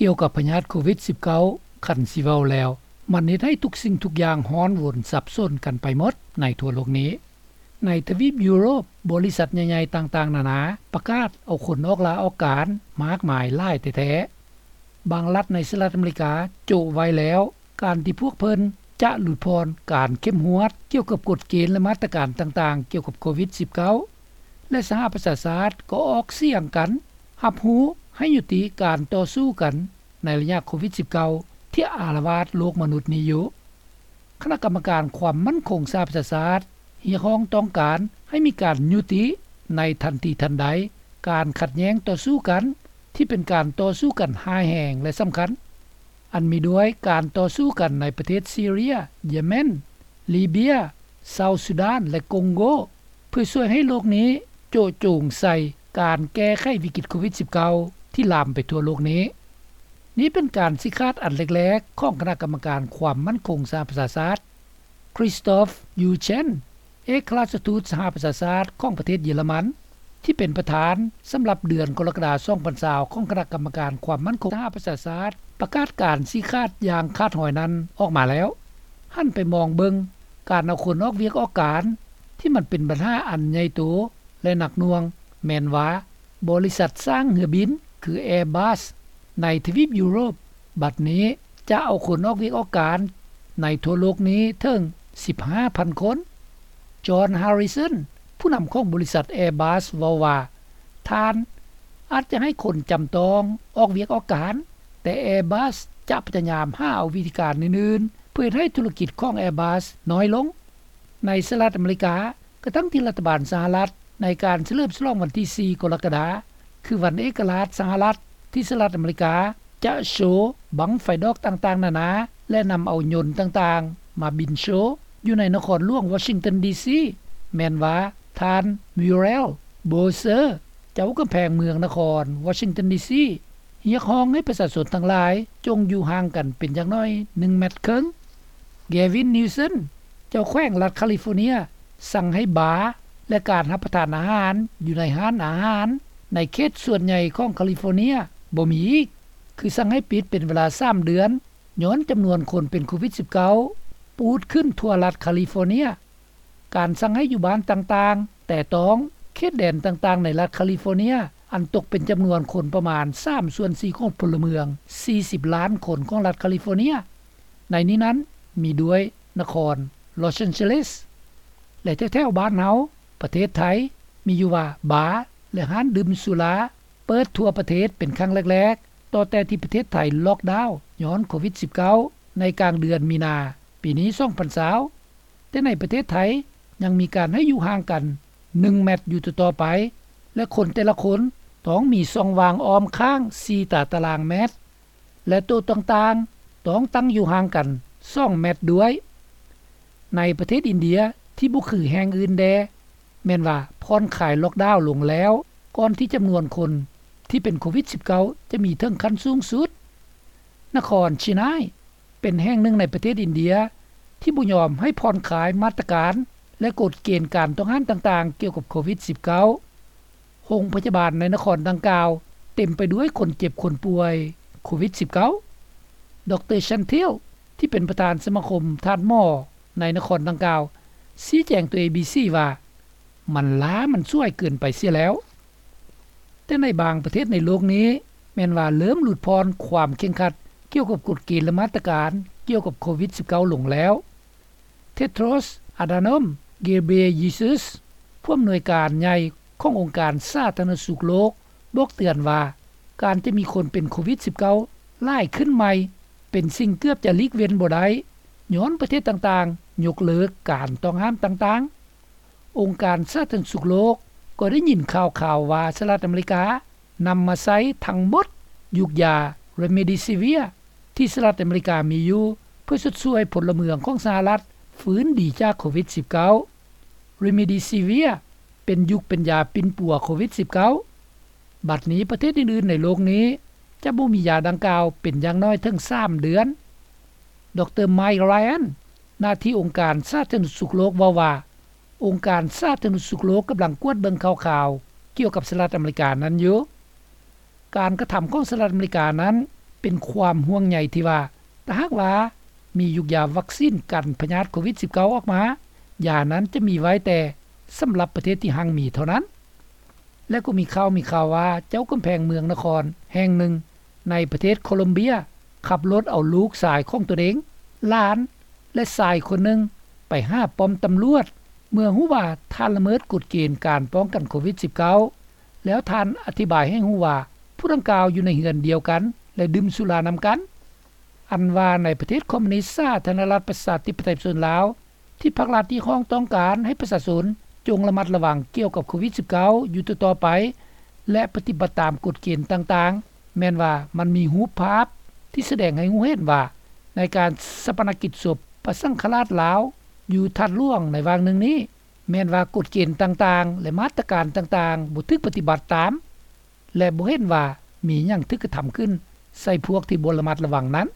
ກ່ຽວກັບພະຍາດໂຄວິດ-19, ຄັນຊິເວົ້າແລ້ວ, ມັນເຮັດໃຫ້ທຸກສິ່ງທຸກຢ່າງຮ້ອນວົນສັບສົນກັນໄປໝົດໃນທົ່ວໂລກນີ້. ໃນທະວີບຢູໂຣບ, ບໍລິສັດໃຫຍ່ໆຕ່າງໆນານາປະກາດເອົາຄົນອອກລາອອກການມາກມາຍຫຼາຍແທ້ໆ. ບາງລັດໃນສະຫະລັດອາເມລິກາໂຈະໄວ້ແລ້ວ ການທີ່ພວກເພິ່ນຈະຫຼຸດຜ່ອນການເຂັ້ມງວດກ່ຽວກັບກົດເກນ ແລະ ມາດຕະການຕ່າງໆກ່ຽວກັບໂຄວິດ-19 ແລະ ສະຫະປະຊາຊາດກໍອອກສຽງກັນຮັບຮູ້ໃຫ້ຍຸຕິການຕໍ່ສູ້ກັນໃນໄລຍະໂຄວິດ-19 ທີ່ອາລະວາດໂລກມະນຸດນີ້ຢູ່. ຄະນະກຳມະການຄວາມໝັ້ນຄົງສະຫະປະຊາຊາດຮຽກຮ້ອງຕ້ອງການໃຫ້ມີການຍຸຕິໃນທັນທີທັນໃດການຂັດແຍ່ງຕໍ່ສູ້ກັນ ທີ່ເປັນການຕໍ່ສູ້ກັນຮ້າຍແຮງ ແລະ ສຳຄັນ, ອັນມີດ້ວຍການຕໍ່ສູ້ກັນໃນປະເທດຊີເຣຍ, ເຢເມນ, ລີເບຍ, ເຊົາຊູດານ ແລະ ກົງໂກ, ເພື່ອຊ່ວຍໃຫ້ໂລກນີ້ໂຈະໂຈງໃສ່ການແກ້ໄຂວິກິດໂຄວິດ-19 ທີ່ລາມໄປທົ່ວໂລກນີ້. ນີ້ເປັນການຊີ້ຂາດອັນແລກໆຂອງຄະນະກຳມະການຄວາມໝັ້ນຄົງສະຫະປະຊາຊາດ. ຄຣິສຕອຟ ຢູເຊນ ເອກອັຄຣາຊທູດສະຫະປະຊາຊາດຂອງປະເທດເຢຍລະມັນ ທີ່ເປັນປະທານສຳລັບເດືອນກໍລະກະດາ ສອງພັນຊາວ ຂອງຄະນະກຳມະການຄວາມໝັ້ນຄົງສະຫະປະຊາຊາດ ປະກາດການຊີ້ຂາດຢ່າງຂາດຫອຍນັ້ນອອກມາແລ້ວ. ຫັນໄປມອງເບິ່ງການເອົາຄົນອອກວຽກອອກການ ທີ່ມັນເປັນບັນຫາອັນໃຫຍ່ໂຕ ແລະ ໜັກໜ່ວງ ແມ່ນວ່າ ບໍລິສັດສ້າງເຮືອບິນ ຄື Airbus ໃນທະວີບຢູໂຣບ ບັດນີ້ຈະເອົາຄົນອອກວຽກອອກການໃນທົ່ວໂລກນີ້ເຖິງສິບຫ້າພັນຄົນ. ຈອນ ຮາຣິສັນ ຜູ້ນຳຂອງບໍລິສັດ Airbus ເວົ້າວ່າ ທ່ານອາດຈະໃຫ້ຄົນຈຳຕ້ອງອອກວຽກອອກການ, ແຕ່ Airbus ຈະພະຍາຍາມຫາເອົາວິທີການອື່ນໆ ເພື່ອເຮັດໃຫ້ທຸລະກິດຂອງ Airbus ນ້ອຍລົງ. ໃນສະຫະລັດອາເມລິກາ, ກະທັ່ງທີ່ລັດຖະບານສະຫະລັດໃນການສະເຫຼີມສະຫຼອງວັນທີສີ່ ກໍລະກະດາ ຄືວັນເອກະລາດສະຫະລັດ ທີ່ສະຫະລັດອາເມລິກາຈະໂຊບັ້ງໄຟດອກຕ່າງໆນານາ ແລະ ນຳເອົາຍົນຕ່າງໆມາບິນໂຊຢູ່ໃນນະຄອນຫຼວງວໍຊິງຕັນ ດີຊີ ແມ່ນວ່າທ່ານ Muriel Bowser ເຈົ້າກຳແພງເມືອງນະຄອນວໍຊິງຕັນ ດີຊີ ຮຽກຮ້ອງໃຫ້ປະຊາຊົນທັງຫຼາຍຈົ່ງຢູ່ຫ່າງກັນເປັນຢ່າງໜ້ອຍໜຶ່ງແມັດເຄິ່ງ. ແກວິນ ນິວເຊັນ ເຈົ້າແຂວງລັດຄາລີຟໍເນັຍ ສັ່ງໃຫ້ບາ ແລະ ການຮັບປະທານອາຫານຢູ່ໃນຮ້ານອາຫານໃນເຂດສ່ວນໃຫຍ່ຂອງຄາລີຟໍເນັຍບໍ່ມີອີກ, ຄືສັ່ງໃຫ້ປິດເປັນເວລາສາມເດືອນ ຍ້ອນຈຳນວນຄົນເປັນໂຄວິດ-19 ປູດຂຶ້ນທົ່ວລັດຄາລີຟໍເນັຍ. ການສັ່ງໃຫ້ຢູ່ບ້ານຕ່າງໆ ແຕ່ຕ້ອງເຂດແດນຕ່າງໆໃນລັດຄາລີຟໍເນັຍ ອັນຕົກເປັນຈຳນວນຄົນປະມານສາມສ່ວນສີ່ຂອງພົນລະເມືອງສີ່ສິບລ້ານຄົນຂອງລັດຄາລີຟໍເນັຍ. ໃນນີ້ນັ້ນມີດ້ວຍນະຄອນລອສແອນເຈລິສ ແລະ ແຖວໆບ້ານເຮົາ ປະເທດໄທ ມີຢູ່ວ່າບາ ແລະ ຮ້ານດື່ມສຸລາເປີດທົ່ວປະເທດເປັນຄັ້ງແລກໆ ຕໍ່ແຕ່ທີ່ປະເທດໄທລັອກດາວຍ້ອນໂຄວິດ-19 ໃນກາງເດືອນມີນາປີນີ້ ສອງພັນຊາວ. ແຕ່ໃນປະເທດໄທຍັງມີການໃຫ້ຢູ່ຫ່າງກັນໜຶ່ງແມັດຢູ່ຕໍ່ໆໄປ ແລະ ຄົນແຕ່ລະຄົນຕ້ອງມີຊ່ອງວ່າງອ້ອມຂ້າງສີ່ຕາຕະລາງແມັດ ແລະ ໂຕະຕ່າງໆຕ້ອງຕັ້ງຢູ່ຫ່າງກັນສອງແມັດດ້ວຍ. ໃນປະເທດອິນເດຍທີ່ບໍ່ຄືແຫ່ງອື່ນແດ່ ແມ່ນວ່າຜ່ອນຄາຍລັອກດາວລົງແລ້ວ ກ່ອນທີ່ຈຳນວນຄົນທີ່ເປັນໂຄວິດ-19 ຈະມີເຖິງຂັ້ນສູງສຸດ. ນະຄອນເຊຍງຮາຍ ເປັນແຫ່ງໜຶ່ງໃນປະເທດອິນເດຍທີ່ບໍ່ຍອມໃຫ້ຜ່ອນຄາຍມາດຕະການ ແລະ ກົດເກນການຕ້ອງຫ້າມຕ່າງໆກ່ຽວກັບໂຄວິດ-19. ໂຮງພະຍາບານໃນນະຄອນດັ່ງກ່າວເຕັມໄປດ້ວຍຄົນເຈັບຄົນປ່ວຍໂຄວິດ-19. ດຣ ຊັນທິລ ທີ່ເປັນປະທານສະມາຄົມທາດໝໍໃນນະຄອນດັ່ງກ່າວ ຊີ້ແຈງຕໍ່ ເອບີຊີ ວ່າ ມັນລ້າມັນສວຍເກີນໄປເສຍແລ້ວ. ແຕ່ໃນບາງປະເທດໃນໂລກນີ້ ແມ່ນວ່າເລີ່ມຫຼຸດຜ່ອນຄວາມເຄັ່ງຄັດກ່ຽວກັບກົດເກນ ແລະ ມາດຕະການກ່ຽວກັບໂຄວິດ-19 ລົງແລ້ວ. ເທໂດຣສ ອາດາໂນມ ເກເບຣເຢຊູສ໌ ຜູ້ອຳນວຍການໃຫຍ່ຂອງອົງການສາທາລະນະສຸກໂລກ ບອກເຕືອນວ່າ ການຈະມີຄົນເປັນໂຄວິດ-19 ຫຼາຍຂຶ້ນໃໝ່ ເປັນສິ່ງເກືອບຈະຫຼີກເວັ້ນບໍ່ໄດ້ ຍ້ອນປະເທດຕ່າງໆຍົກເລີກການຕ້ອງຫ້າມຕ່າງໆ. ອົງການສາທາລະນະສຸກໂລກກໍໄດ້ຍິນຂ່າວຄາວວ່າ ສະຫະລັດອາເມລິການຳມາໃຊ້ທັງໝົດຢູກຢາ ເຣເມດີຊີເວຍ ທີ່ສະຫະລັດອາເມລິກາມີຢູ່ ເພື່ອຊົດຊ່ວຍພົນລະເມືອງຂອງສະຫະລັດຟື້ນດີຈາກໂຄວິດ-19. ເຣເມດີຊີເວຍ ເປັນຢູກເປັນຢາປິ່ນປົວໂຄວິດ-19. ບັດນີ້ປະເທດອື່ນໆໃນໂລກນີ້ຈະບໍ່ມີຢາດັ່ງກ່າວເປັນຢ່າງໜ້ອຍເຖິງສາມເດືອນ. ດຣ ໄມລຣາຍອັນ ໜ້າທີ່ອົງການສາທາລະນະສຸກໂລກເວົ້າວ່າ ອົງການສາທາລະນະສຸກໂລກກຳລັງກວດເບິ່ງຂ່າວໆກ່ຽວກັບສະຫະລັດອາເມລິການັ້ນຢູ່. ການກະທຳຂອງສະຫະລັດອາເມລິການັ້ນ ເປັນຄວາມຫ່ວງໃຍທີ່ວ່າ ຖ້າຫາກວ່າມີຢູກຢາວັກຊິນກັນພະຍາດໂຄວິດ-19 ອອກມາ ຢານັ້ນຈະມີໄວ້ແຕ່ສຳລັບປະເທດທີ່ຮັ່ງມີເທົ່ານັ້ນ. ແລະກໍມີຂ່າວມີຂ່າວວ່າ ເຈົ້າກຳແພງເມືອງນະຄອນແຫ່ງໜຶ່ງໃນປະເທດໂຄລັມເບຍ ຂັບລົດເອົາລູກຊາຍຂອງຕົນເອງ, ຫຼານ ແລະຊາຍຄົນໜຶ່ງ ໄປຫາປ້ອມຕຳຫຼວດ ເມື່ອຮູ້ວ່າທ່ານລະເມີດກົດເກນການປ້ອງກັນໂຄວິດ-19 ແລ້ວທ່ານອະທິບາຍໃຫ້ຮູ້ວ່າ ຜູ້ດັ່ງກ່າວຢູ່ໃນເຮືອນດຽວກັນ ແລະດື່ມສຸລານຳກັນ. ອັນວ່າໃນປະເທດຄອມມູນິດສາທາລະນະລັດປະຊາທິປະໄຕປະຊາຊົນລາວ ທີ່ພັກລັດຮຽກຮ້ອງຕ້ອງການໃຫ້ປະຊາຊົນ ຈົ່ງລະມັດລະວັງກ່ຽວກັບໂຄວິດ-19 ຢູ່ຕໍ່ໆໄປ ແລະປະຕິບັດຕາມກົດເກນຕ່າງໆ ແມ່ນວ່າມັນມີຮູບພາບທີ່ສະແດງໃຫ້ຮູ້ເຫັນວ່າ ໃນການຊາປະນະກິດສົບພະສັງຄະລາດລາວ ຢູ່ທາດຫຼວງໃນຫວ່າງໜຶ່ງນີ້ ແມ່ນວ່າກົດເກນຕ່າງໆ ແລະມາດຕະການຕ່າງໆ ບໍ່ຖືກປະຕິບັດຕາມ ແລະບໍ່ເຫັນວ່າມີຫຍັງຖືກກະທຳຂຶ້ນໃສ່ພວກທີ່ບໍ່ລະມັດລະວັງນັ້ນ.